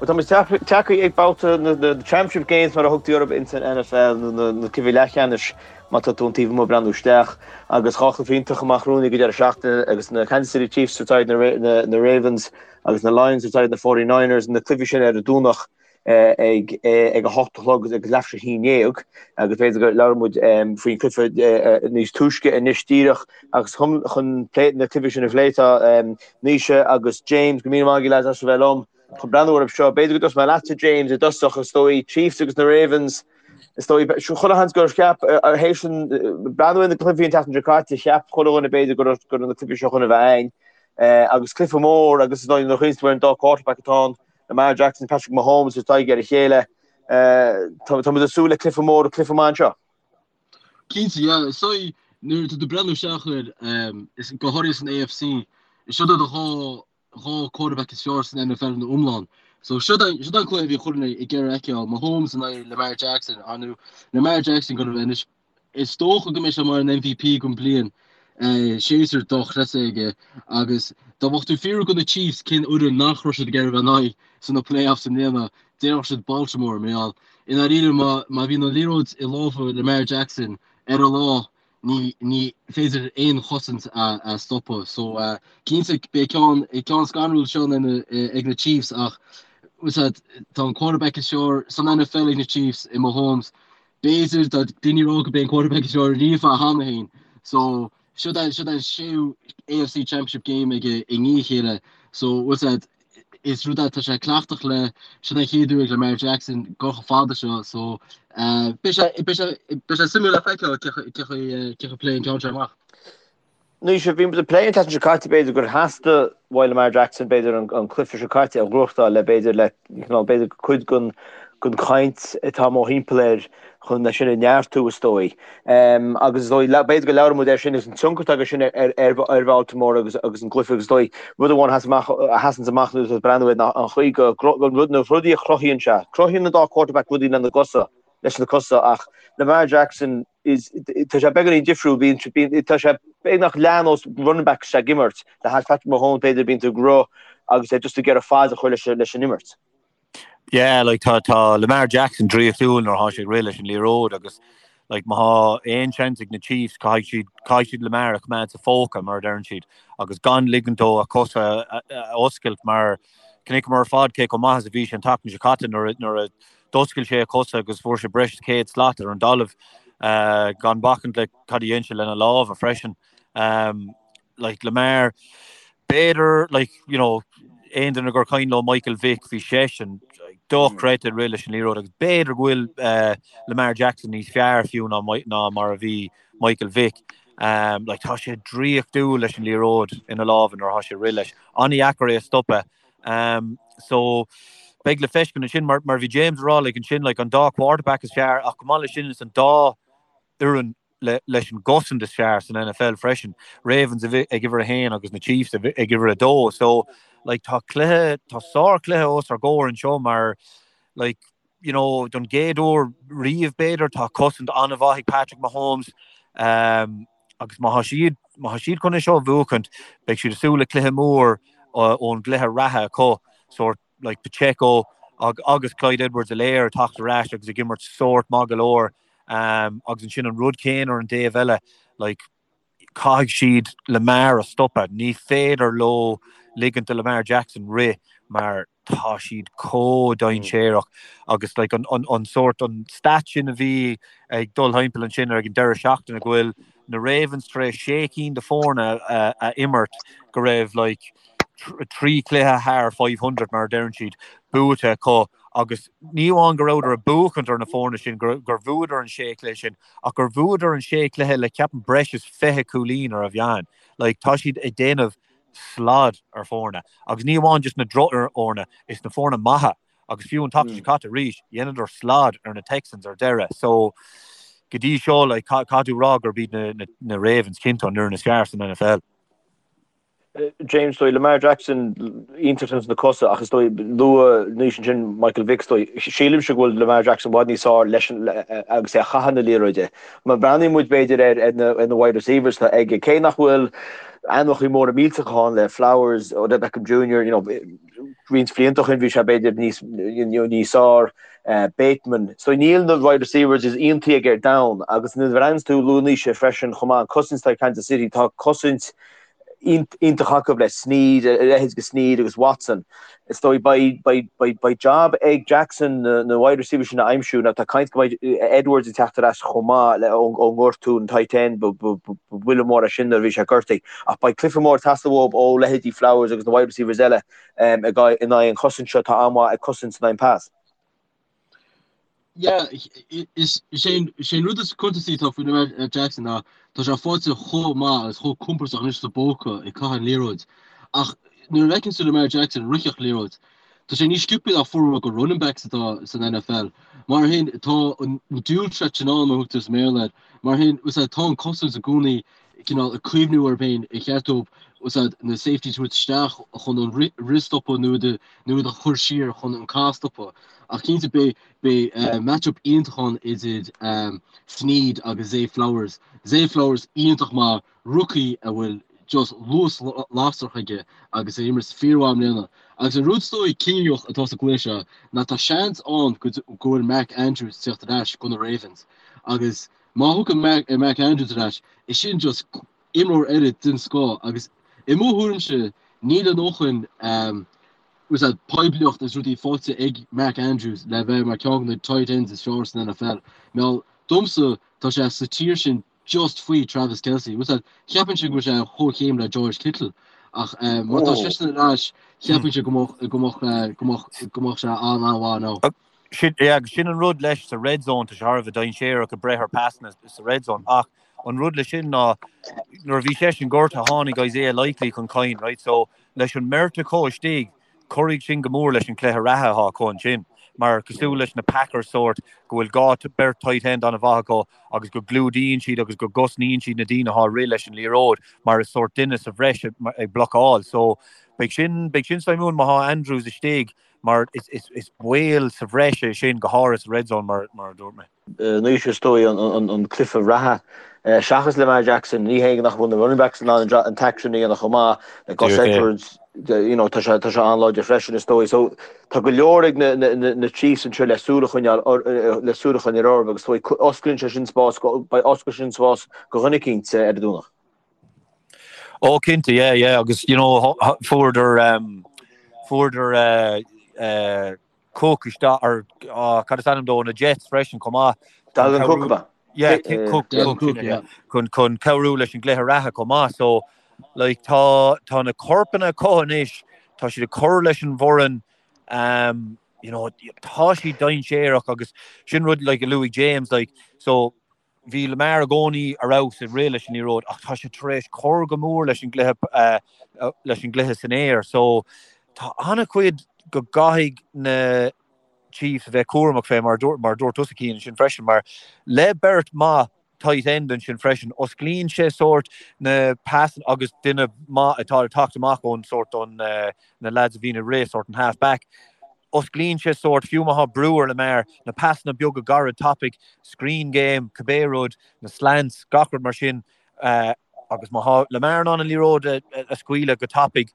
Bhuel, tá muid tagtha ag babhta na Championship Games mar a thugtaí orthu ins an NFL, nó na cluichí leathcheannais má tá tú ón taobh amuigh ag breathnú isteach. Agus 2 chluiche iontach amach romhainn ag an deireadh seachtaine agus na Kansas City Chiefs ag tabhairt aghaidh ar na Ravens agus na Lions ag tabhairt aghaidh ar na 49ers, na cluichí sin ar an Domhnach ag ag a hocht a chlog agus leathuair tar éis a 11 agus b'fhéidir go labhróidh muid faoin cluiche níos túisce anois díreach agus chun chun plé na cluichí sin a phlé tá Naoise agus James go míle maith agaibh lads as a bheith liom chun breathnú orthu seo. B'fhéidir go dtosóidh mé leatsa James i dtosach is dóigh Chiefs agus na Ravens is dóigh chuile sheans gur cheap théis an breathnú ar na cluichí an tseachtain seo caite cheap chuile dhuine b'fhéidir go raibh go raibh na cluichí seo chun a bheith againn agus cluiche mór agus is dóigh nuair a chuimhníonn tú ar an dá quarterback atá ann Lamar Jackson, Patrick Mahomes ag tabhairt aghaidh ar a chéile. Tá muid ag súil le cluiche mór, cluiche maith anseo. Cinnte, yeah. Is dóigh nuair atá tú ag breathnú isteach air, is go háirithe san AFC, is siod iad an 2 quarterback is fearr san NFL ina iomlán. So siod é an cluiche a bhí chuile dhuine ag iarraidh a fheiceáil, Mahomes in aghaidh Lamar Jackson, ar ndóigh Lamar Jackson go raibh anois Is dócha go mbeidh sé mar an MVP den bliain, séasúr dochreidte aige agus dá mbeadh tú ag fiafraí de na Chiefs cén fhoireann nach raibh siad ag iarraidh a bheith in aghaidh sna playoffs i mbliana, déarfadh siad Baltimore mar gheall i ndáiríre má má bhíonn an liathróid i lámha Lamar Jackson ar a lá ní ní féidir aon chosaint a a stopadh. So cinnte beidh ceann ceann scanrúil seo ag na Chiefs ach tá an quarterback is fearr san NFL ag na Chiefs i Mahomes B'fhéidir, tá daoine ag rá gurb é an quarterback is fearr riamh é cheana féin. So, siod é, siod é an séú AFC Championship game aige i ndiaidh a chéile. So, bhfuil a fhios agat, is rud é, tá sé cleachtach le, siod é an chéad uair ag Lamar Jackson dul chomh fada seo. So, beidh sé, beidh sé, beidh sé suimiúil le feiceáil cé chaoi, cé chaoi a pléann an ceann seo amach. Anois, bhí muid ag plé an tseachtain seo caite, b'fhéidir gur theastaigh uaidh Lamar Jackson, b'fhéidir, an cluiche seo caite a ghnóthachtáil le, b'fhéidir, le, cineál, b'fhéidir, cuid den, den chaint atá mórthimpeall air chun é sin a neartú, is dóigh. Agus is dóigh, b'fhéidir go labhróidh muid air sin agus an tionchar atá aige sin ar, ar, ar Bhaltimore agus, agus an gcluiche agus is dóigh, rud amháin a sheas amach, a sheasanns amach nuair atá tú ag breathnú air ná an chaoi go, an rud, na rudaí a chruthaíonn sé. Cruthaíonn an dá quarterback rudaí lena gcosa, leis na cosa ach Lamar Jackson, is tá sé beagáinín difriúil, bíonn, bíonn, tá sé beagnach leath nós running back ag imirt, le hais Patrick Mahomes b'fhéidir bíonn tú ag rith agus é just ag iarraidh fad a chur leis, leis an imirt. Yeah, like tá, tá Lamar Jackson draíochtúil nuair atá sé ag rith leis an liathróid agus like má thá aon seans ag na Chiefs caithfidh siad, caithfidh siad Lamar a choimeád sa phóca mar a deireann siad agus gan ligint dó a cosa a, a oscailt mar chonaiceamar ar fad cé chomh maith is a bhí sé an tseachtain seo caite nuair a, nuair a D'oscail sé a chosa agus fuair sé breis is 100 slat ar an dtalamh, gan bacaint le cad a dhein sé lena lámha freisin. Like Lamar, b'fhéidir, like, you know, aon duine gur cuimhin leo Michael Vick, bhí seisean dochreidte ag rith leis an liathróid agus b'fhéidir go bhfuil Lamar Jackson níos fearr fiú ná ná mar a bhí Michael Vick. Like, tá sé draíochtúil leis an liathróid ina lámha nuair atá sé ag rith leis. An-dheacair é a stopadh. So, beidh le feiscint ansin, mar mar bhí James ag rá like ansin like an dá quarterback is fearr ach chomh maith leis sin is an dá fhoireann le leis an gcosaint is fearr san NFL freisin. Ravens ag uimhir a haon agus na Chiefs ag uimhir a dó. So, like tá cluiche, tá sár-chluiche os ár gcomhair anseo mar like you know, don gcéad uair riamh b'fhéidir, tá cosaint an-mhaith ag Patrick Mahomes agus má tá siad, má tá siad chun é seo a bhuachaint, beidh siad ag súil le cluiche mór ón gcluiche reatha acu, sórt like Pacheco agus Clyde Edwards-Helaire ag teacht ar ais agus ag imirt sórt maith go leor agus ansin an rud céanna ar an dtaobh eile, like caithfidh siad Lamar a stopadh, ní féidir leo ligint do Lamar Jackson rith mar tá siad chomh dainséarach agus like an an an sórt an stat sin a bhí ag dul thimpeall ansin ag an deireadh seachtaine go bhfuil na Ravens tar éis sé cinn de foirne a, a imirt go raibh like trí chluiche thar 500 mar a deireann siad buaite acu agus ní amháin go rabhadar ag buachaint ar na foirne sin gur gur bhuadar an sé chluiche sin ach gur bhuadar an sé chluiche le ceapaim breis is 20 cúilín ar an mheán like tá siad ag déanamh slad ar foirne agus ní amháin just na drochfhoirne, is na foirne maithe agus fiú an tseachtain seo caite arís, dheineadar slad ar na Texans ar deireadh. So go dtí seo like caithfidh tú rá gurb iad na, na, na Ravens cinnte an fhoireann is fearr san NFL. James, dóigh Lamar Jackson iontach ins na cosa ach is dóigh luaigh Naoise ansin Michael Vick is dóigh sílimse go bhfuil Lamar Jackson i bhfad níos fearr leis an agus é ag caitheamh na liathróide. Má bhreathnaíonn muid b'fhéidir ar ar na ar na wide receivers atá aige cé nach bhfuil. Ainmneacha móra millteacha ann le Flowers, Odell Beckham Jr, you know, roinnt blianta ó shin bhí sé b'fhéidir níos, you know, níos fearr, Bateman. So níl na wide receivers is iontaí aige ar domhan agus nuair a bhreathnaíonn tú luaigh Naoise freisin chomh maith an cosaint atá ag Kansas City, tá cosaint iontach acu le Snead, a leithéid de Snead agus Watson. Is dóigh beidh, beidh, beidh, beidh job ag Jackson na, na wide receivers sin a aimsiú. Now tá caint go mbeidh Edwards ag teacht ar ais chomh maith le ón, ón ngortú an tight end, ba, ba, ba, ba bhuille mór é sin nuair a bhí sé gortaithe. Ach beidh cluiche mór ag teastáil uathu ó leithéidí Flowers agus na wide receivers eile um, ag, in aghaidh an chosaint seo atá an-mhaith ag cosaint in aghaidh an pass. Yeah, is é an rud is cuntasaí atá faoi Lamar Jackson ná tá sé faighte chomh maith agus chomh compordach anois sa bpóca ag caitheamh an liathróid. Ach nuair a fheiceann tú Lamar Jackson ag ritheacht liathróid, tá sé níos sciobtha ná formhór go running backs atá san NFL. Mar sin, tá an dual threat sin ann, mar a thugtar sa mBéarla air. Mar sin, tá an cosaint i gcónaí cineál ag cuimhniú orthu féin ar cheart dóibh úsáid na safeties a thabhairt isteach chun an rith a stopadh nó iad nó iad a chur siar chun an cath a stopadh. Ach cinnte beidh beidh match-up iontach ann idir Snead agus Zay Flowers. Zay Flowers iontach maith, rookie a bhfuil just luas lasrach aige agus é ag imirt fíormhaith i mbliana. Agus an rud is dóigh cinniúnach atá sa gcluiche seo ná tá seans ann go bhfuil Mark Andrews ag teacht ar ais do na Ravens agus Má thiocfaidh Mark Andrews ar ais, is sin just imreoir eile den scoth agus i mo thuairimse níl a ndóthain úsáid poiblíocht is rudaí faighte ag Mark Andrews le bheith mar ceann de na tight ends is fearr san NFL. Mar domsa tá sé sa tier sin just faoi Travis Kelce. Úsáid cheapfainnse go bhfuil sé ar chomhchéim le George Kittle ach má tá seisean ar ais cheapfainnse go mbeadh go mbeadh go mbeadh go mbeadh sé an-an-mhaith now. Sin, yeah, agus sin an rud leis sa red zone, tá sé thar a bheith dainséarach ag breith ar pasanna sa red zone, ach an rud leis sin ná nuair a bhí seisean gortaithe tháinig Isaiah Likely chun cinn, right, so leis an mbeirt acu istigh, cuirfidh sin go mór leis an cluiche reatha atá acu ansin, mar cosúil leis na Packers sórt go bhfuil dhá beirt tight end an-mhaith acu agus go gclúdaíonn siad agus go gcosnaíonn siad na daoine atá ag rith leis an liathróid mar is sórt duine sa bhreis ag blocáil, so beidh sin, beidh sin suimiúil má thá Andrews istigh. mar is baol sa bhreis é sin, go háirithe sa red zone, mar a dúirt mé. Anois is dóigh an cluiche reatha, seachas Lamar Jackson, ní hé nach bhfuil na running backs in ann an t-action a dhéanamh chomh maith, le Gus Edwards, you know, tá sé tá sé an-láidir freisin is dóigh. So tá go leor ag na na na Chiefs anseo le súil a choinneáil le súil a choinneáil orthu agus is dóigh osclaíonn sé sin spás beidh osclaíonn sin spás do dhuine eicínt ar an Domhnach. Ó cinnte, yeah, yeah, agus you know fuaireadar um, fuaireadar uh, uh, Cook isteach ar uh, cad is ainm dó na Jets freisin chomh maith. Dalvin Cook ba. Yeah, Cook, Cook, Cook, yeah. Chun chun cabhrú leis an gcluiche reatha chomh maith. So like tá tá na corpanna acu anois, tá siad ag cur leis an bhfoireann um, you know, tá siad dainséarach agus sin rud like a luaigh James like so Bhí Lamar i gcónaí ar fheabhas ag rith leis an liathróid ach tá sé tar éis cur go mór leis an gcluiche leis an gcluiche san aer so tá an-chuid go gcaithfidh na Chiefs a bheith cúramach fé mar mar a dúirt tusa Cian ansin freisin mar le beirt maith tight end ansin freisin osclaíonn sé sórt na pas agus duine maith atá ag teacht amach ón sórt ón na lads a bhíonn ag rith sórt an half back. Osclaíonn sé sórt, fiú má thá brú ar Lamar, na pasanna beaga gairid tapaidh, screen game, cibé rud, na slants, gach rud mar sin agus má thá Lamar in ann an liathróid a scaoileadh go tapaidh,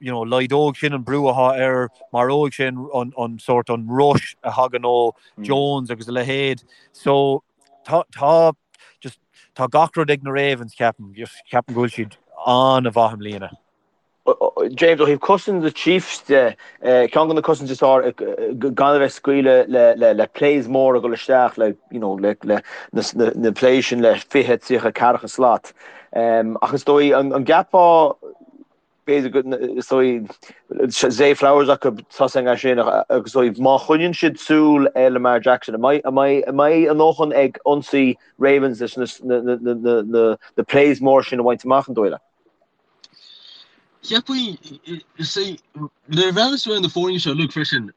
you know, laghdóidh sin an brú athá air, maróidh sin an, an sórt, an rush a thagann ó Jones agus a leithéid. So, tá, tá, just, tá gach rud ag na Ravens, ceapaim, just ceapaim go bhfuil siad an-mhaith i mbliana. James, ó thaobh cosaint na Chiefs de, ceann de na cosaintí is fearr gan a bheith ag scaoileadh le plays móra ag dul isteach le you know le na plays sin le 20, 30, ceathracha slat. Ach is dóigh an gceapfá b'fhéidir go is dóigh Zay Flowers acu tosaigh as sin agus is dóigh má choinníonn siad súil ar Lamar Jackson an mbeidh a ndóthain ag ionsaí Ravens leis na plays móra sin a bhaint amach an dóigh leat? Cheapfainn, see, nuair a bhreathnaíos ar na foirne seo uilig freisin,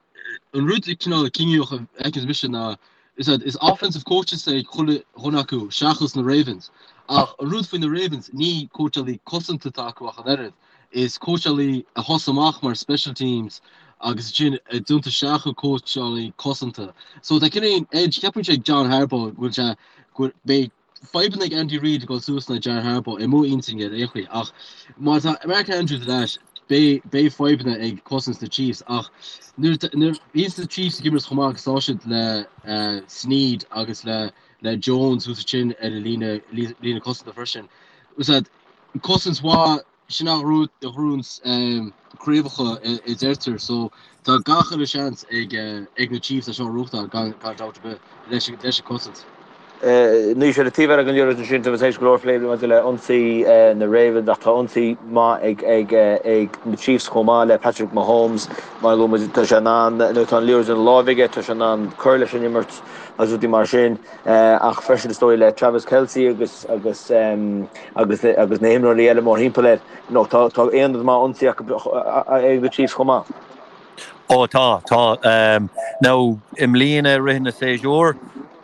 an rud cineál cinniúnach a fheiceanns mise ná is that is offensive coaches ag chuile dhuine acu seachas na Ravens. Ach an rud faoi na Ravens, ní cóitseálaí cosanta atá acu ach an oiread, is cóitseálaí a thosaigh amach mar special teams agus ansin a d'iompaigh isteach ina cóitseálaí cosanta. So tá cineál edge, cheapfainnse ag John Harbaugh go bhfuil sé, go bhfuil, beidh. fadhbanna ag Andy Reid ag dul suas in aghaidh John Harbaugh i mo intinn ar aon chaoi ach má tá Mark Andrews ar ais beidh beidh fadhbanna ag cosaint na Chiefs ach nuair nuair bhíonns na Chiefs ag imirt chomh maith agus tá siad le Sneed agus le le Jones thuas ansin ar an líne líne cosanta freisin. Úsáid cosaint mhaith Sin an rud a ghnóthaíonns craobhacha a deirtear so tá gach uile seans ag na Chiefs é seo a ghnóthachtáil gan dabht ar bith leis an cosaint. Anois ar an taobh eile den liathróid ansin tá muid tar éis go leor plé maidir le ionsaí na Ravens ach tá ionsaí maith ag na Chiefs chomh maith le Patrick Mahomes. Mar a luaigh muid tá sé in ann nuair atá an liathróid ina láimh aige tá sé in ann cur leis an imirt agus rudaí mar sin. Ach freisin is dóigh le Travis Kelce agus agus agus agus na himreoirí eile mórthimpeall air, you know, tá tá aonad maith ionsaí acu ag na Chiefs chomh maith. Ó tá, tá. Now i mbliana i rith na séasúr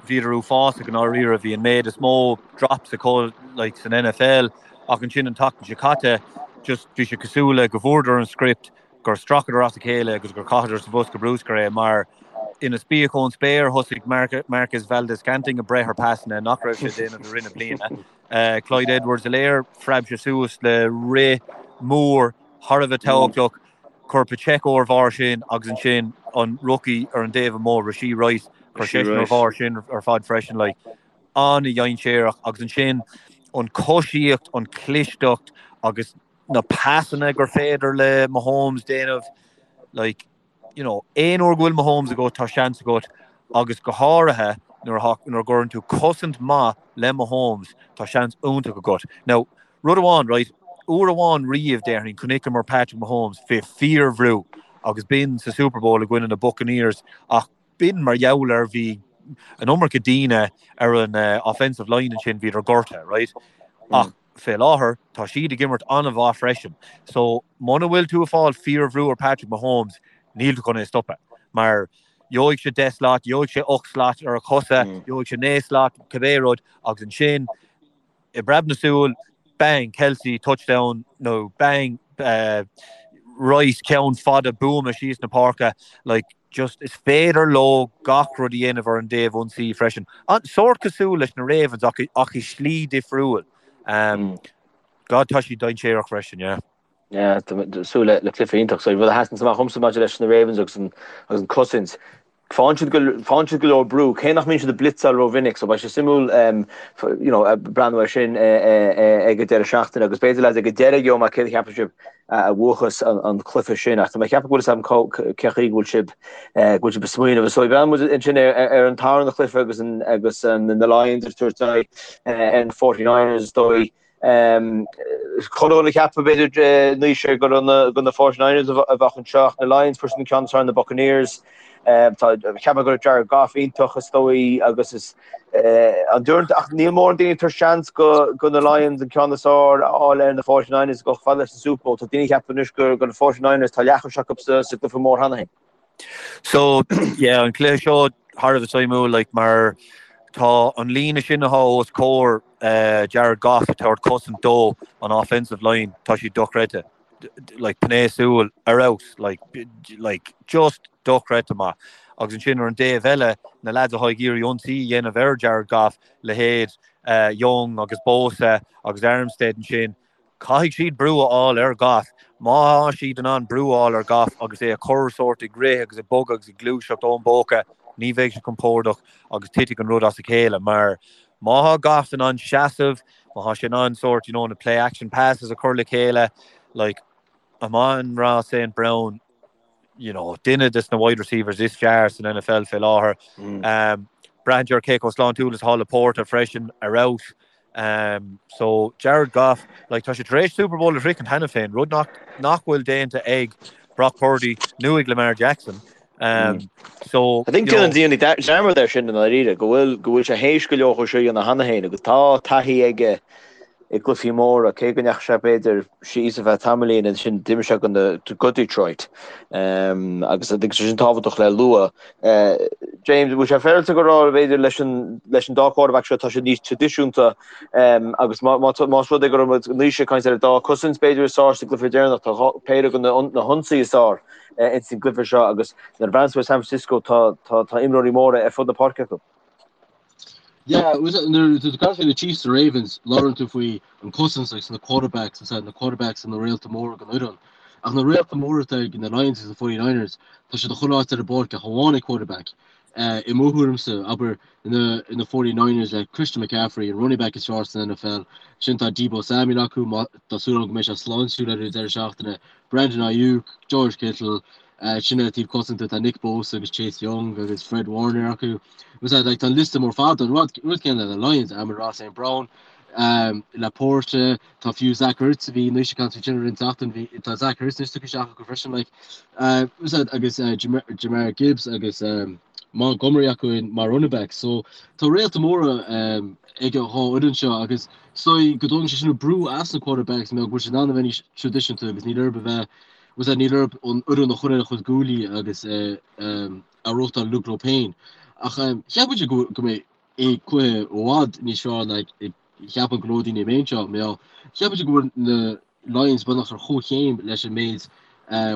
bhíodar uafásach i ndáiríre, bhí an méid is mó drops acu like san NFL ach ansin an tseachtain seo caite just bhí sé cosúil le go bhfuaireadar an script gur stracadar as a chéile agus gur chaitheadar sa bhosca bruscair é mar ina spíoc ón spéir thosaigh Marquez Valdes-Scantling ag breith ar pasanna nach raibh sé ag déanamh i rith na bliana. Clyde Edwards-Helaire, phreab sé suas le rith mór thar a bheith tábhachtach, chuir Pacheco ar bharr sin agus ansin an rookie ar an dtaobh amuigh, Rashee Rice, chuir seisean ar bharr sin ar fad freisin. Like, an-dhainséarach agus ansin an coisíocht, an clisteacht agus na pasanna gur féidir le Mahomes déanamh, like, you know, aon uair go bhfuil Mahomes agat, tá seans agat, agus go háirithe nuair a nuair a gcuireann tú cosaint maith le Mahomes, tá seans iontach agat. Now, rud amháin, right, uair amháin riamh, déarfainn, chonaiceamar Patrick Mahomes fé fíorbhrú agus b'in sa Super Bowl i gcoinne na Buccaneers ach b'in mar gheall ar bhí an iomarca daoine ar an offensive line ansin, bhíodar gortaithe, right? Ach Fé láthair, tá siad ag imirt an-mhaith freisin. So, muna bhfuil tú ag fáil fíorbhrú ar Patrick Mahomes, níl tú chun é a stopadh. Mar gheobhaidh sé 10 slat, gheobhaidh sé 8 slat ar a chosa, gheobhaidh sé 9 slat, cibé rud, agus ansin, i bpreab na súl, bang, Kelce, touchdown, nó bang, Rice, ceann fada buama síos na páirce. Like, just is féidir leo gach rud a dhéanamh ar an dtaobh ionsaí freisin. An sórt cosúil leis na Ravens ach ach i slí difriúil. Um, God tá siad dainséarach freisin, yeah. Yeah, tá súil le le cluiche iontach. So rud a sheasann amach dhomsa maidir leis na Ravens agus an agus an cosaint. Faigheann siad go faigheann siad go leor brú, cé nach mbíonn siad ag blitzáil rómhinic, so beidh sé suimiúil um, you know, breathnú air sin ag an deireadh seachtaine agus b'fhéidir lads ag an deireadh gheobhaidh mé céard a cheapann sibh a bhuachas an cluiche sin. Ach tá mé ag ceapadh go bhfuil fhios agam cé chaoi go bhfuil sibh go bhfuil sibh ag smaoineamh. So breathnóidh muid ansin ar an tarna chluiche agus an agus an na Lions ag tabhairt aghaidh ar na 49ers is dóigh. Chuile dhuine ag ceapadh b'fhéidir Naoise gur gur na 49ers a bheadh anseo ach na Lions fuair siad an ceann is fearr ar na Buccaneers. Tá ceapadh go raibh Jared Goff iontach is dóigh agus is an dúirt ach níl mórán daoine ag tabhairt seans go go na Lions an ceann is fearr a fháil ar na 49ers go fada leis an Super Bowl. Tá daoine ag ceapadh anois gur go na 49ers tá leathchois acu sa sa gcluiche mór cheana féin. So yeah an cluiche seo thar a bheith suimiúil like mar tá an líne sin atá os comhair uh, Jared Goff ag tabhairt cosaint dó an offensive line tá siad dochreidte. like pné súl ar fheabhas like like just dochreidte maith. Agus ansin ar an dtaobh eile na lads atá ag iarraidh ionsaí a dhéanamh ar Jared Goff, leithéid uh, Young agus Bosa agus Armstead ansin, caithfidh siad brú a fháil ar Goff. Má tá siad in ann brú a fháil ar Goff agus é a chur sórt ag rith agus ag bogadh agus ag gluaiseacht ón bpóca, ní bheidh sé compordach agus titfidh an rud as a chéile mar má tá Goff in ann seasamh, Má tá sé in ann sórt, you know, na play action passes a chur le chéile, like, Amon-Ra St. Brown, you know, duine des na wide receivers is fearr san NFL fé láthair. Um, braitheann sé ar cé chomh sláintiúil is atá Laporta freisin ar fheabhas. Um, so Jared Goff, like, tá sé tar éis Super Bowl a shroichint cheana féin, rud nach, nach bhfuil déanta ag Brock Purdy nó ag Lamar Jackson. Um, so, I think déanann daoine dearmad air sin i ndáiríre, go bhfuil go bhfuil sé théis go leor seo a dhéanamh cheana féin agus tá taithí aige i gcluichí móra, cé go ndeachaigh sé b'fhéidir síos ar feadh tamaillín ansin d'imir sé go na go Detroit. Um, agus I think sin tábhachtach le lua. Uh, James, bhfuil sé féaráilte go rá b'fhéidir leis an leis an dá quarterback seo tá siad níos traidisiúnta um, agus má má más rud é go raibh muid Naoise ag caint ar an dá cosaint b'fhéidir is fearr sa gcluiche deireanach tá péire de na na hionsaí is fearr ins an gcluiche seo agus nuair a bhreathnaíonn tú ar San Francisco tá tá tá imreoirí móra ar fud na páirce acu. Yeah, nuair atá tú ag caint faoi na Chiefs is Ravens, labhrann tú faoi an cosaint agus na quarterbacks, is na quarterbacks na réalta móra den fhoireann. Ach na réalta móra atá ag na Lions agus na 49ers, tá siad chuile áit ar an bpáirc ach amháin ag quarterback. I mo thuairimse, abair, na na 49ers le Christian McCaffrey, an running back is fearr san NFL, sin tá Deebo Samuel acu, tá súil agam go mbeidh sé sláintiúil ar an deireadh seachtaine, Brandon Aiyuk, George Kittle, sin ar an taobh cosanta tá Nick Bosa agus Chase Young agus Fred Warner acu. Was that like tá an liosta mór fada an rud rud céanna le Lions, Amon-Ra St. Brown, um, LaPorta, tá fiú Zach Ertz a bhí anois ag caint faoi sin roinnt seachtain bhí tá Zach Ertz anois tugtha isteach acu freisin like uh, was that agus uh, Jamar, Jamar Gibbs agus um, Montgomery acu in mar running back so tá réalta móra um, ag an dhá fhoireann seo agus so go dtógann sé sin brú as na quarterbacks mar go bhfuil siad in ann a bheith níos traidisiúnta agus níl orthu a bheith was that níl orthu an fhoireann a chur ar a chuid guaillí agus uh, um, a reáchtáil Luke leo féin. Ach cheap muid go mbeidh é cluiche i bhfad níos fearr ná cheapann go leor daoine an méid seo. Mar cheap muid go bhfuil na Lions beagnach ar chomhchéim leis an méid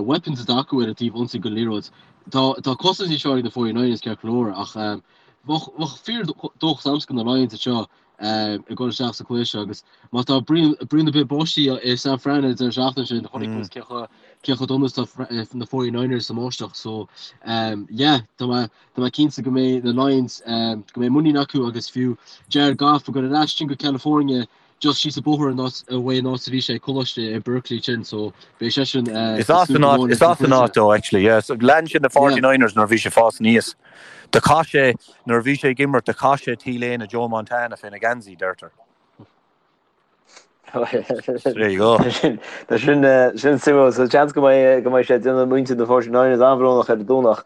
weapons atá acu ar an taobh ionsaí den liathróid. Tá tá cosaint níos fearr ag na 49ers ceart go leor ach bheadh fíor dóchas agamsa do na Lions anseo ag dul isteach sa chluiche seo agus má tá bruíon ar bith báistí i San Fran an deireadh seachtaine sin chonaic muid cé chomh cé chomh dona is atá na 49ers sa mbáisteach so yeah tá mé tá mé cinnte go mbeidh na Lions go mbeidh muinín acu agus fiú Jared Goff ag dul ar ais sin go California just síos an bóthar an áit uaidh an áit a bhí sé ag coláiste i Berkeley sin so beidh seisean Is as an áit is as an áit dó actually yeah so lean sé na 49ers nuair a bhí sé ag fás aníos. Do chaith sé, nuair a bhí sé ag imirt, do chaith sé T-léine Joe Montana féna gheansaí, deirtear. So there you go. Tá sin sin suimiúil. So seans go mbeidh go mbeidh sé ag déanamh muintir na 49ers an-bhrónach ar an Domhnach.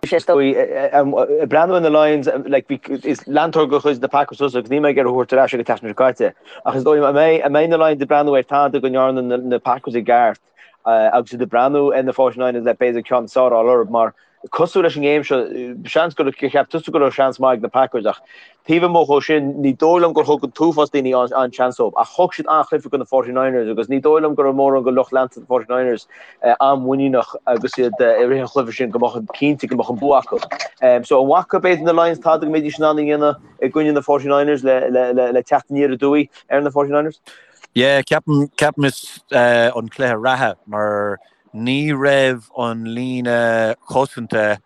Sé ag breathnú ar na Lions, like, bhí, is leantóir de chuid na Packers tusa agus níl mé ag iarraidh thú a thabhairt ar ais ag an tseachtain seo caite. Ach is dóigh liom, an mbeidh, an mbeidh na Lions ag breathnú ar tada go ndearna na, na Packers i gceart agus iad ag breathnú ar na 49ers le b'fhéidir ceann is fearr a fháil orthu mar cosúil leis an ngéim seo, seans gur cheap tusa go raibh seans maith ag na Packers ach taobh amuigh dhó sin, ní dóigh liom gur thug an t-uafás daoine an-seans dóibh ach thug siad an-chluiche do na 49ers agus ní dóigh liom go raibh mórán de lucht leanta na 49ers an-mhuiníneach agus iad i rith an chluiche sin go mbeadh cinnte go mbeadh an bua acu. So an bhfaca b'fhéidir na Lions tada go mbeidís in ann a dhéanamh i gcoinne na 49ers le teacht aniar aduaidh ar na 49ers? Yeah, ceapaim, ceapaim is an cluiche reatha mar ní raibh an líne chosanta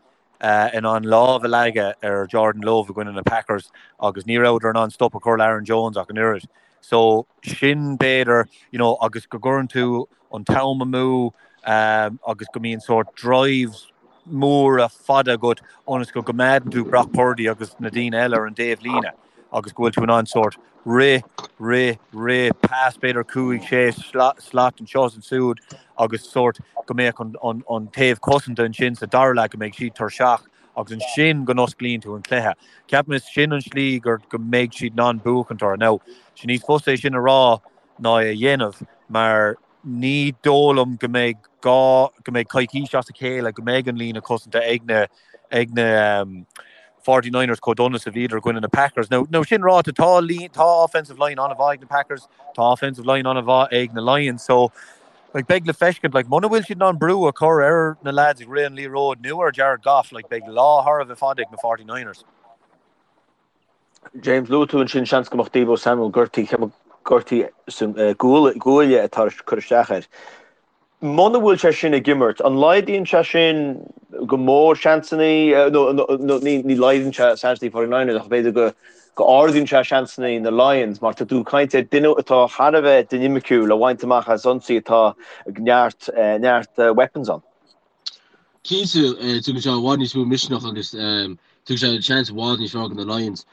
in ann lámh a leagadh ar Jordan Love i gcoinne na Packers agus ní rabhadar in ann stop a chur le Aaron Jones ach an oiread. So sin b'fhéidir, you know, agus go gcuireann tú an t-am amú agus go mbíonn sórt drives móra fada agat ionas go gcoimeádann tú Brock Purdy agus na daoine eile ar an dtaobh líne. agus go bhfuil tú in ann sórt rith, rith, rith, pass b'fhéidir 5, 6 slat anseo is ansiúd agus sórt go mbeadh an, an, an taobh cosanta ansin sa dara leath go mbeidh siad tuirseach agus ansin go n-osclaíonn tú an cluiche. Ceapaim is sin an slí gur go mbeidh siad in ann buachaint orthu. Now, sé níos fusa é sin a rá ná é a dhéanamh mar ní dóigh liom go mbeidh gá go mbeidh coicís as a chéile go mbeidh an líne cosanta ag na ag na 49ers chomh dona is a bhíodar i gcoinne na Packers. Now, now sin ráite, tá tá offensive line an-mhaith ag na Packers, tá offensive line an-mhaith ag na Lions, so like, beidh le feiscint, like, muna bhfuil siad in ann brú a chur ar na lads ag rith an liathróid nó ar Jared Goff, like, beidh lá thar a bheith fada ag na 49ers. James, luaigh tú ansin seans go mbeadh Deebo Samuel gortaithe, gortú san guaille atá ag cur isteach air. Muna bhfuil sé sin ag imirt, an laghdaíonn sé sin go mór seansanna, nó ní laghdaíonn sé seansanna 49ers ach b'fhéidir go go ardaíonn sé seansanna na Lions mar tá tú ag caint ar duine atá thar a bheith dinimiciúil a bhaint amach as ionsaí atá ag neart neart weapons ann. Cinnte, tugann sé i bhfad níos mó misneach agus tugann sé seans i bhfad níos fearr do na Lions.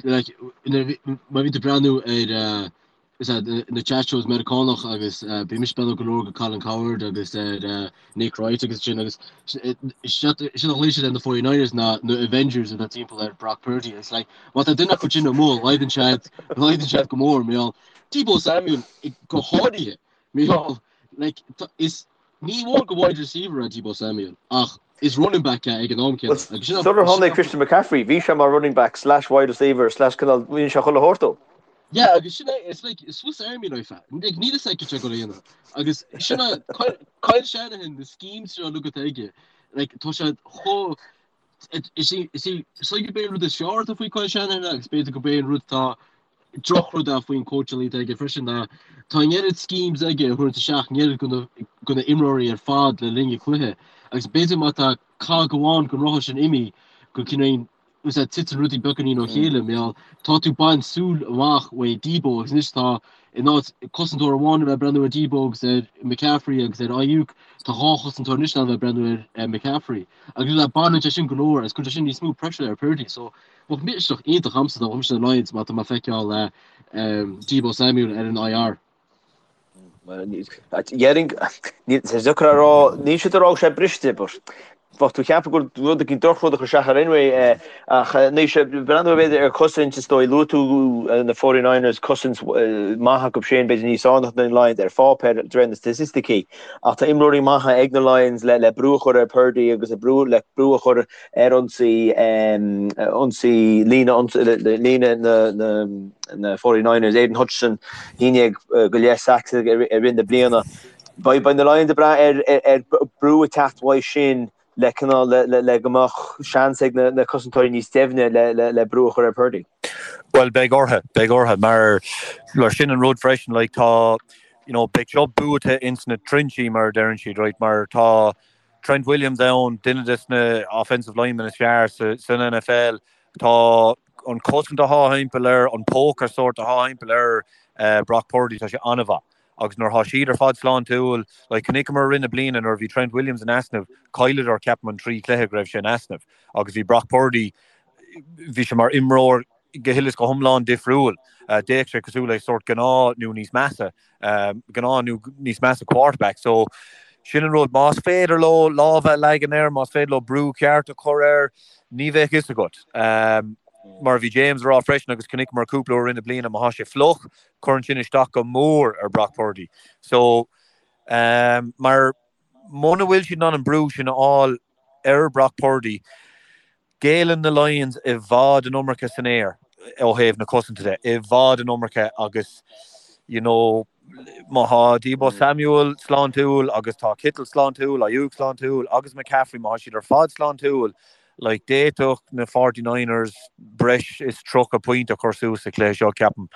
Like, má bhíonn tú ag breathnú ar is ea, na chat shows Meiriceánach agus bhí mise ag breathnú go leor go Colin Cowherd agus ar Nick Wright agus sin agus sin a ghlaoigh siad ar na 49ers ná na Avengers atá timpeall ar Brock Purdy. It's like má tá duine acu sin amuigh laghdaíonn siad laghdaíonn siad go mór mar gheall Deebo Samuel go háirithe mar gheall like is Ní amháin gur wide receiver é Deebo Samuel, ach is running back é ag an am céanna. Agus sin Sular tháinig Christian McCaffrey, bhí sé mar running back slash wide receiver slash cineál, bhí sé chuile shórt dó. Yeah, agus sin é, it's like Swiss Army knife é. Like, níl fhios aige cad é go dhéanamh. Agus sin é, Kyle Shanahan, na schemes seo uilig atá aige, like, tá sé chomh. Is í is í is í gurb é an rud is fearr atá faoi Kyle Shanahan agus b'fhéidir gurb é an rud atá drochrud é faoin cóitseáil atá aige freisin ná tá an oiread schemes aige a thabhairt isteach an oiread de na imreoirí ar fad le linn an chluiche agus b'fhéidir má tá cog amháin den rothar sin imithe go cineál is ea titeann rudaí beagáinín ó chéile mar gheall tá tú ag baint súil amach uaidh Deebo agus anois tá in áit cosantóir amháin a bheith ag breathnú ar Deebo agus ar McCaffrey agus ar Aiyuk tá dhá chosantóir anois ann a bheith ag breathnú ar McCaffrey agus le baineann sé sin go leor agus cuireann sé sin níos mó pressure ar Purdy so bheadh misneach iontach a'msa dá mbeadh mise na Lions má tá mé ag feiceáil Deebo Samuel ar an IR. Déarfainn, tá sé deacair a rá, níl siad ag rá go bhfuil sé briste, but bheadh tú ag ceapadh gur rud éigin drochrud a chuir isteach air anyway ach anois breathnú b'fhéidir ar chosaint is dóigh luaigh tú na 49ers cosaint maith acu sin b'fhéidir níos fearr ná na Lions ar pháipéar de réir na staitisticí ach tá imreoirí maithe ag na Lions le le brú a chur ar Purdy agus le brú le brú a chur ar ionsaí ionsaí líne líne na na na 49ers Aidan Hutchinson 11 go leith sacks i rith na bliana. Beidh beidh na Lions ag brath ar ar brú ag teacht uaidh sin le cineál le le le go mbeadh seans ag na na cosantóirí níos doimhne le le le brú a chur ar Purdy. Bhuel beidh orthu, beidh orthu mar mar sin an rud freisin like tá you know beidh seo buaite ins na trinsí mar a deireann siad right mar tá Trent Williams ann, duine des na offensive linemen is fearr sa san NFL. Tá an cosaint atá thimpeall air, an póca sórt atá thimpeall ar Brock Purdy, tá sé an-mhaith. Agus nuair atá siad ar fad sláintiúil, like chonaiceamar i rith na bliana nuair a bhí Trent Williams in easnamh, chailleadar ceapaim an trí chluiche go raibh sé in easnamh agus bhí Brock Purdy, bhí sé mar imreoir go huile is go hiomlán difriúil. D'fhéach sé cosúil le sórt gnáth nó níos measa, gnáth nó níos measa quarterback. So sin an rud, más féidir leo lámha a leagan air, más féidir leo brú ceart a chur air, ní bheadh fhios agat. Mar a bhí James a rá freisin agus chonaiceamar cúpla uair i rith na bliana, má tá sé fliuch, cuireann sin isteach go mór ar Brock Purdy. So mar muna bhfuil siad in ann an brú sin a fháil ar Brock Purdy, Géilleann na Lions i bhfad an iomarca san aer ó thaobh na cosanta de, i bhfad an iomarca agus you know má tá Deebo Samuel sláintiúil agus tá Kittle sláintiúil, Aiyuk sláintiúil agus McCaffrey, má tá siad ar fad sláintiúil, like d'fhéadfadh na 49ers breis is 30 pointe a chur suas sa chluiche seo, ceapaim.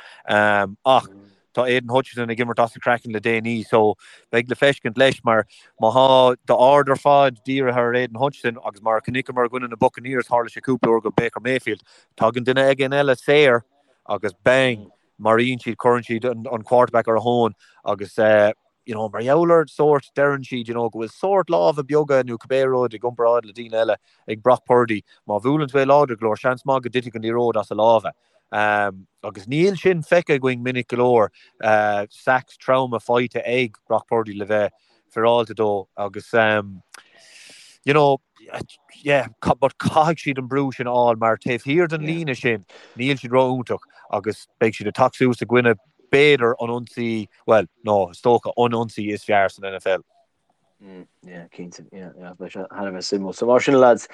Ach tá Aidan Hutchinson ag imirt as a chraiceann le déanaí so beidh le feiscint leis mar má thá d'aird ar fad dírithe ar Aidan Hutchinson agus mar a chonaiceamar i gcoinne na Buccaneers tharla sé cúpla uair go Baker Mayfield, tagann duine éigin eile saor agus bang! maraíonn siad, cuireann siad an quarterback ar a thóin agus you know mar gheall ar sórt, deireann siad you know go bhfuil sórt lámha beaga nó cibé rud i gcomparáid le daoine eile ag Brock Purdy, má bhuaileann tú é láidir go leor, seans maith go dtitfidh an liathróid as a lámha. Agus níl sin feicthe againn minic go leor, sacks troma faighte ag Brock Purdy le bheith féaráilte dó agus you know, yeah, but caithfidh siad an brú sin a fháil mar taobh thiar den líne sin níl siad ró-iontach agus beidh siad ag teacht suas i gcoinne b'fhéidir an ionsaí, bhuel, no, is dócha, an ionsaí is fearr san NFL. Mm, yeah, cinnte, yeah, yeah, beidh sé thar a bheith suimiúil. So mar sin lads,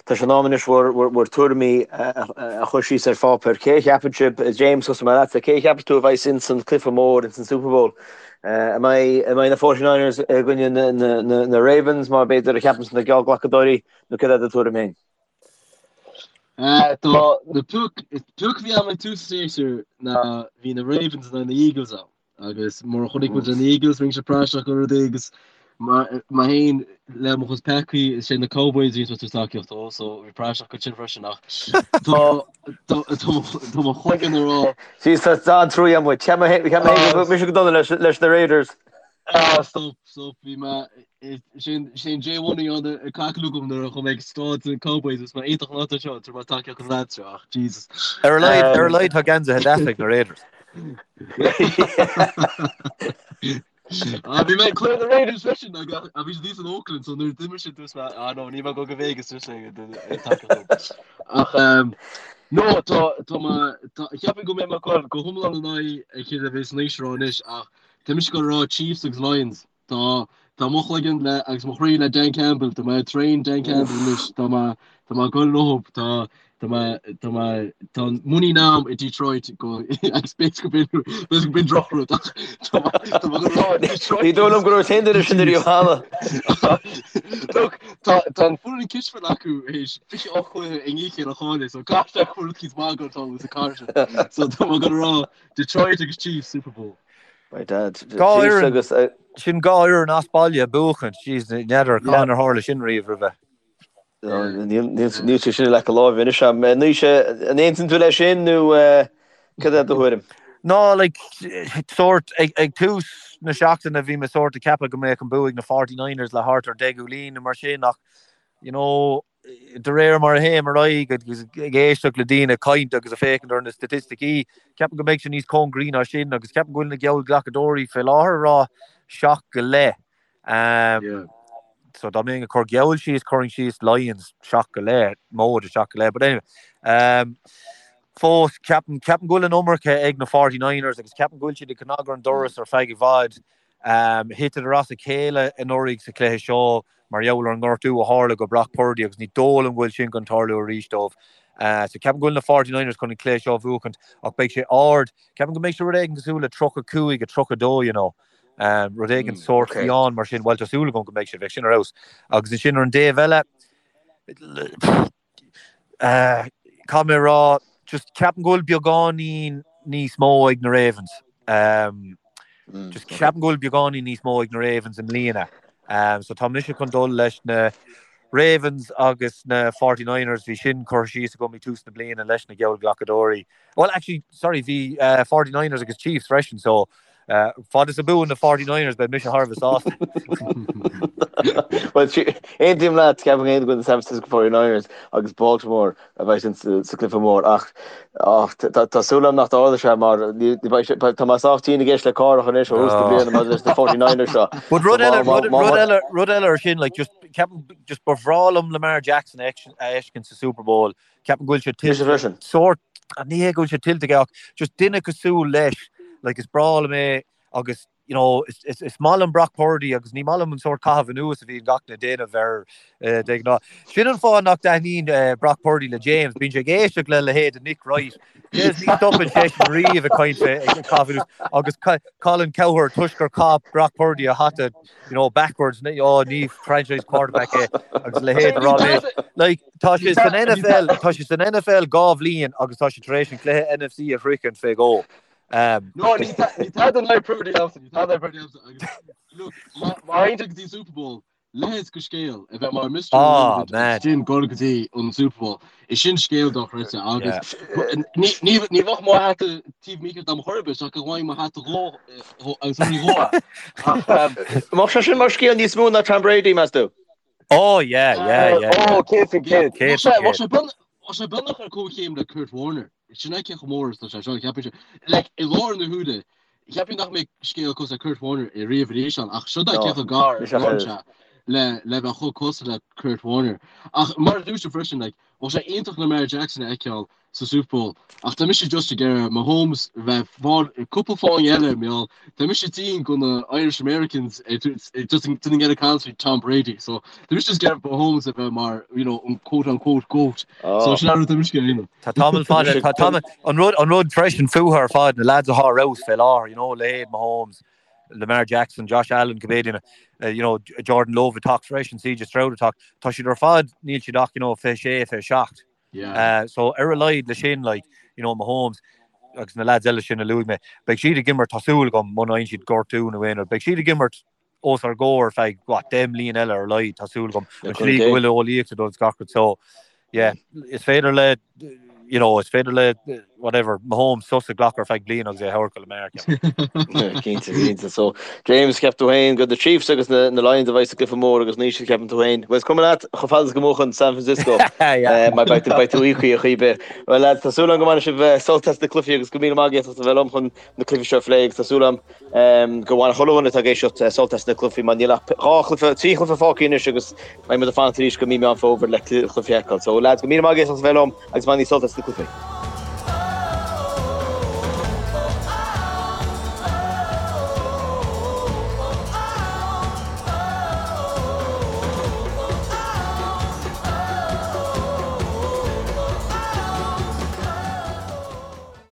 tá sé in am anois bhur, bhur, bhur tuairimí a, a chur síos ar pháipéar. Cé a cheapann sibh, James, tosóidh mé leatsa, cé a cheapann tú a bheidh ins an cluiche mór, ins an Super Bowl? An mbeidh, an mbeidh na 49ers i gcoinne na, na, na, na Ravens mar b'fhéidir a cheapann na geallghlacadóirí nó céard é do tuairim féin? Tá na pioc, pioc a bhí agam ag tús an séasúir ná bhí na Ravens in aghaidh na Eagles ann. Agus mar a chonaic muid na Eagles rinne siad praiseach go rudaí agus mé féin le mo chuid peacaí is é na Cowboys a bhí ag tacaíocht dó so bhí praiseach go sin freisin ach tá tá mo chloigeann ag rá Jeez tá an-trua amuigh. Cheap mé cheap mé go mise go dona leis leis na Raiders. Ah stop stop bhí mé sin sin J Money ann ag caclú agam nuair a chuaigh mé ag staid na Cowboys is mé iontach an áit seo tar mé tacaíocht an lads seo ach Jesus. Ar a laghad ar a laghad tá geansaithe deasa ag na Raiders. Ah, bhí mé ag cluiche na Raiders freisin ag a bhí siad in Oakland so nuair d'imir siad dúirt mé ah no níl mé ag dul go Vegas arís ag ag tacaíocht. Ach um, no tá tá mé tá cheapfainn go mbeidh mé ag dul go hiomlán in aghaidh a chéile a bheas an aois rá anois ach tá mise ag dul a rá Chiefs agus Lions. Tá. Tá mo chloigeann le agus mo chroí le Dan Campbell, tá mé train Dan Campbell anois, tá mé tá mé ag dul leo, tá tá mé tá mé tá an muinín a'm i Detroit go agus b'fhéidir go b'in b'fhéidir go b'in drochrud ach tá mé tá mé ag rá Detroit Ní dóigh liom go raibh aon duine sin ariamh cheana. Look, tá tá an foireann cispheile acu théis 28 cluiche i ndiaidh a chéile a chailleadh, so caithfidh sé go bhfuil rud eicínt maith ag dul sa chathair sin. So tá mé ag rá Detroit agus Chiefs Super Bowl. My dad. Dhá fhoireann, agus, sin dhá fhoireann as baile ag buachaint, jeez, n'fheadar cá ar tharla sin riamh roimhe. Níl sé sin i leac a láimhe anois a'm. Naoise, an aontaíonn tú leis sin nó cad é do thuairim? No, like, sórt, ag, ag tús na seachtaine bhí mé sórt ag ceapadh go mbeadh an bua ag na 49ers le thart ar 10 gcúilín nó mar sin ach, you know, De réir mar a théim ar aghaidh agus ag éisteacht le daoine ag caint agus ag féachaint ar na staitisticí, ceapaim go mbeidh sé níos cóngaraí ná sin agus ceapaim go bhfuil na geallghlacadóirí fé láthair ag rá 7 go leith. So dá mbeinn ag cur geall síos, chuirfinn síos Lions 7 go leith, móide 7 go leith. But anyway, fós ceapaim, ceapaim go bhfuil an iomarca ag na 49ers agus ceapaim go bhfuil siad ag cnagadh ar an doras ar feadh i bhfad. Thiteadar as a chéile anuraidh sa chluiche seo mar gheall ar an ngortú a tharla go Brock Purdy agus ní dóigh liom go bhfuil sin chun tarlú arís dóibh. So ceapaim go bhfuil na 49ers chun an cluiche seo a bhuachaint ach beidh sé ard. Ceapaim go mbeidh sé rud éigin cosúil le 35 32 you know. Rud éigin sórt fiáin mar sin. Bhuel tá súil agam go mbeidh sé, bheadh sin ar fheabhas. Agus ansin ar an dtaobh eile, Caithfidh mé a rá, just ceapaim go bhfuil beagáinín níos mó ag na Ravens. Just ceapaim go bhfuil beagáinín níos mó ag na Ravens i mbliana. So tá mise chun dul leis na Ravens agus na 49ers, bhí sin curtha síos agam ag tús na bliana leis na geallghlacadóirí. Well, actually, sorry, bhí 49ers agus Chiefs freisin, so Fad is a bhuann na 49ers beidh mise thar a bheith sásta. Well, aontaím leat, ceapaim féin go bhfuil na San Francisco 49ers agus Baltimore a bheidh sa gcluiche mór ach tá súil agam nach dtarlóidh sé mar tá mé sách tinn ag éisteacht le Cárthach anois ó thús na bliana maidir leis na 49ers seo. But rud eile, rud eile, rud eile ar sin, like, just, ceapaim, just ba bhreá liom Lamar Jackson a fheiscint sa Super Bowl. Ceapaim go bhfuil sé tuillte. Freisin. Sórt, ní hé go bhfuil sé tuillte aige ach just duine cosúil leis, like is breá liom é agus you know, is, is, is maith liom Brock Purdy agus ní maith liom an sórt caitheamh anuas a bhíonn gach duine ag déanamh air eh, de ghnáth. Sin an fáth nach dtaitníonn eh, Brock Purdy le James, bíonn sé ag éisteacht le leithéid de Nick Wright. James ní stopann seisean riamh ag caint fé ag caitheamh anuas agus Colin Cowherd toisc gur chaith Brock Purdy a hata you know, backwards, oh, ní franchise quarterback é agus leithéid a rá léis. Like, Tá sé san NFL, tá sé san NFL dhá bhliain agus tá sé tar éis an cluiche NFC a shroichint fé dhó. No, ní tada in aghaidh Purdy agamsa, ní tada in aghaidh Purdy agamsa. Agus, look, má théann sé go dtí an Super Bowl, leithéid de scéal a bheith mar Mr. Oh, man. Irrelevant sin dul go dtí an Super Bowl. Is sin scéal dochreidte agus ní ní ní bheadh mo hata taobh mícheart dom chor ar bith ach go bhfaighinn mo hata dhó agus an dhó. Mbeadh sé sin mar scéal níos mó ná Tom Brady, meas tú? Oh yeah, yeah, yeah. Oh, 100%. 100%. Tá sé beagnach ar comhchéim le Kurt Warner. Sin é cé chomh mór is atá sé seo, ceapann sé. Like, i láthair na huaire, cheapfainn nach mbeidh scéal cosúil le Kurt Warner i riamh arís ann, ach seo é cé chomh gar is atá sé le le bheith chomh cosúil le Kurt Warner. Ach mar a dúirt tú freisin, like, bheadh sé iontach Lamar Jackson a fheiceáil sa Super Bowl ach tá mise just ag iarraidh Mahomes bheith fáil cúpla fáinne eile mar gheall tá mise tinn go na Irish Americans just ag iarraidh caint faoi Tom Brady so tá mise just ag iarraidh Mahomes a bheith mar you know an quote unquote goat so sin an rud tá mise ag iarraidh. Tá tamall fada tá tamall an rud an rud freisin fúthu ar fad na lads atá ar fheabhas fé láthair you know leithéid Mahomes Lamar Jackson Josh Allen cibé duine you know Jordan Love ag teacht freisin CJ Stroud ag teacht tá siad ar fad níl siad ach you know 26 27 Yeah. So ar a laghad le sin like, you know, Mahomes agus na lads eile sin a luaigh mé, beidh siad ag imirt, tá súil agam, muna fhaigheann siad gortú nó aon rud, beidh siad ag imirt os ár gcomhair ar feadh, what, 10 mbliain eile ar a laghad, tá súil agam, an tslí go bhfuil eolaíocht ag dul is gach rud. So, yeah, is féidir le, you know, is féidir le, whatever, Mahomes sos a ghlacadh ar feadh bliain agus é a thabhairt go Lamar, ceapaim. Cinnte, cinnte. So, James, ceap tú féin go the Chiefs agus na, na Lions a bheidh sa gcluiche mór agus Naoise ceapann tú féin. Bhuel, is cuma leat chomh fada is go mbuachann San Francisco. Yeah. Mar beidh tú, beidh tú íoctha ar chaoi ar bith. Bhuel, lads, tá súil agam go mbainfidh sibh sult as na cluichí agus go míle maith agaibh as a bheith liom chun na cluichí seo a phlé agus tá súil agam gur bhain chuile dhuine atá ag éisteacht sult as na cluichí mar níl ach dhá chluiche, trí chluiche fágtha anois agus beidh muid ag fanacht arís go mí Meán Fómhair le cluichí a fheiceáil. So lads, go míle maith agaibh as a bheith liom agus bainigí sult as na cluichí.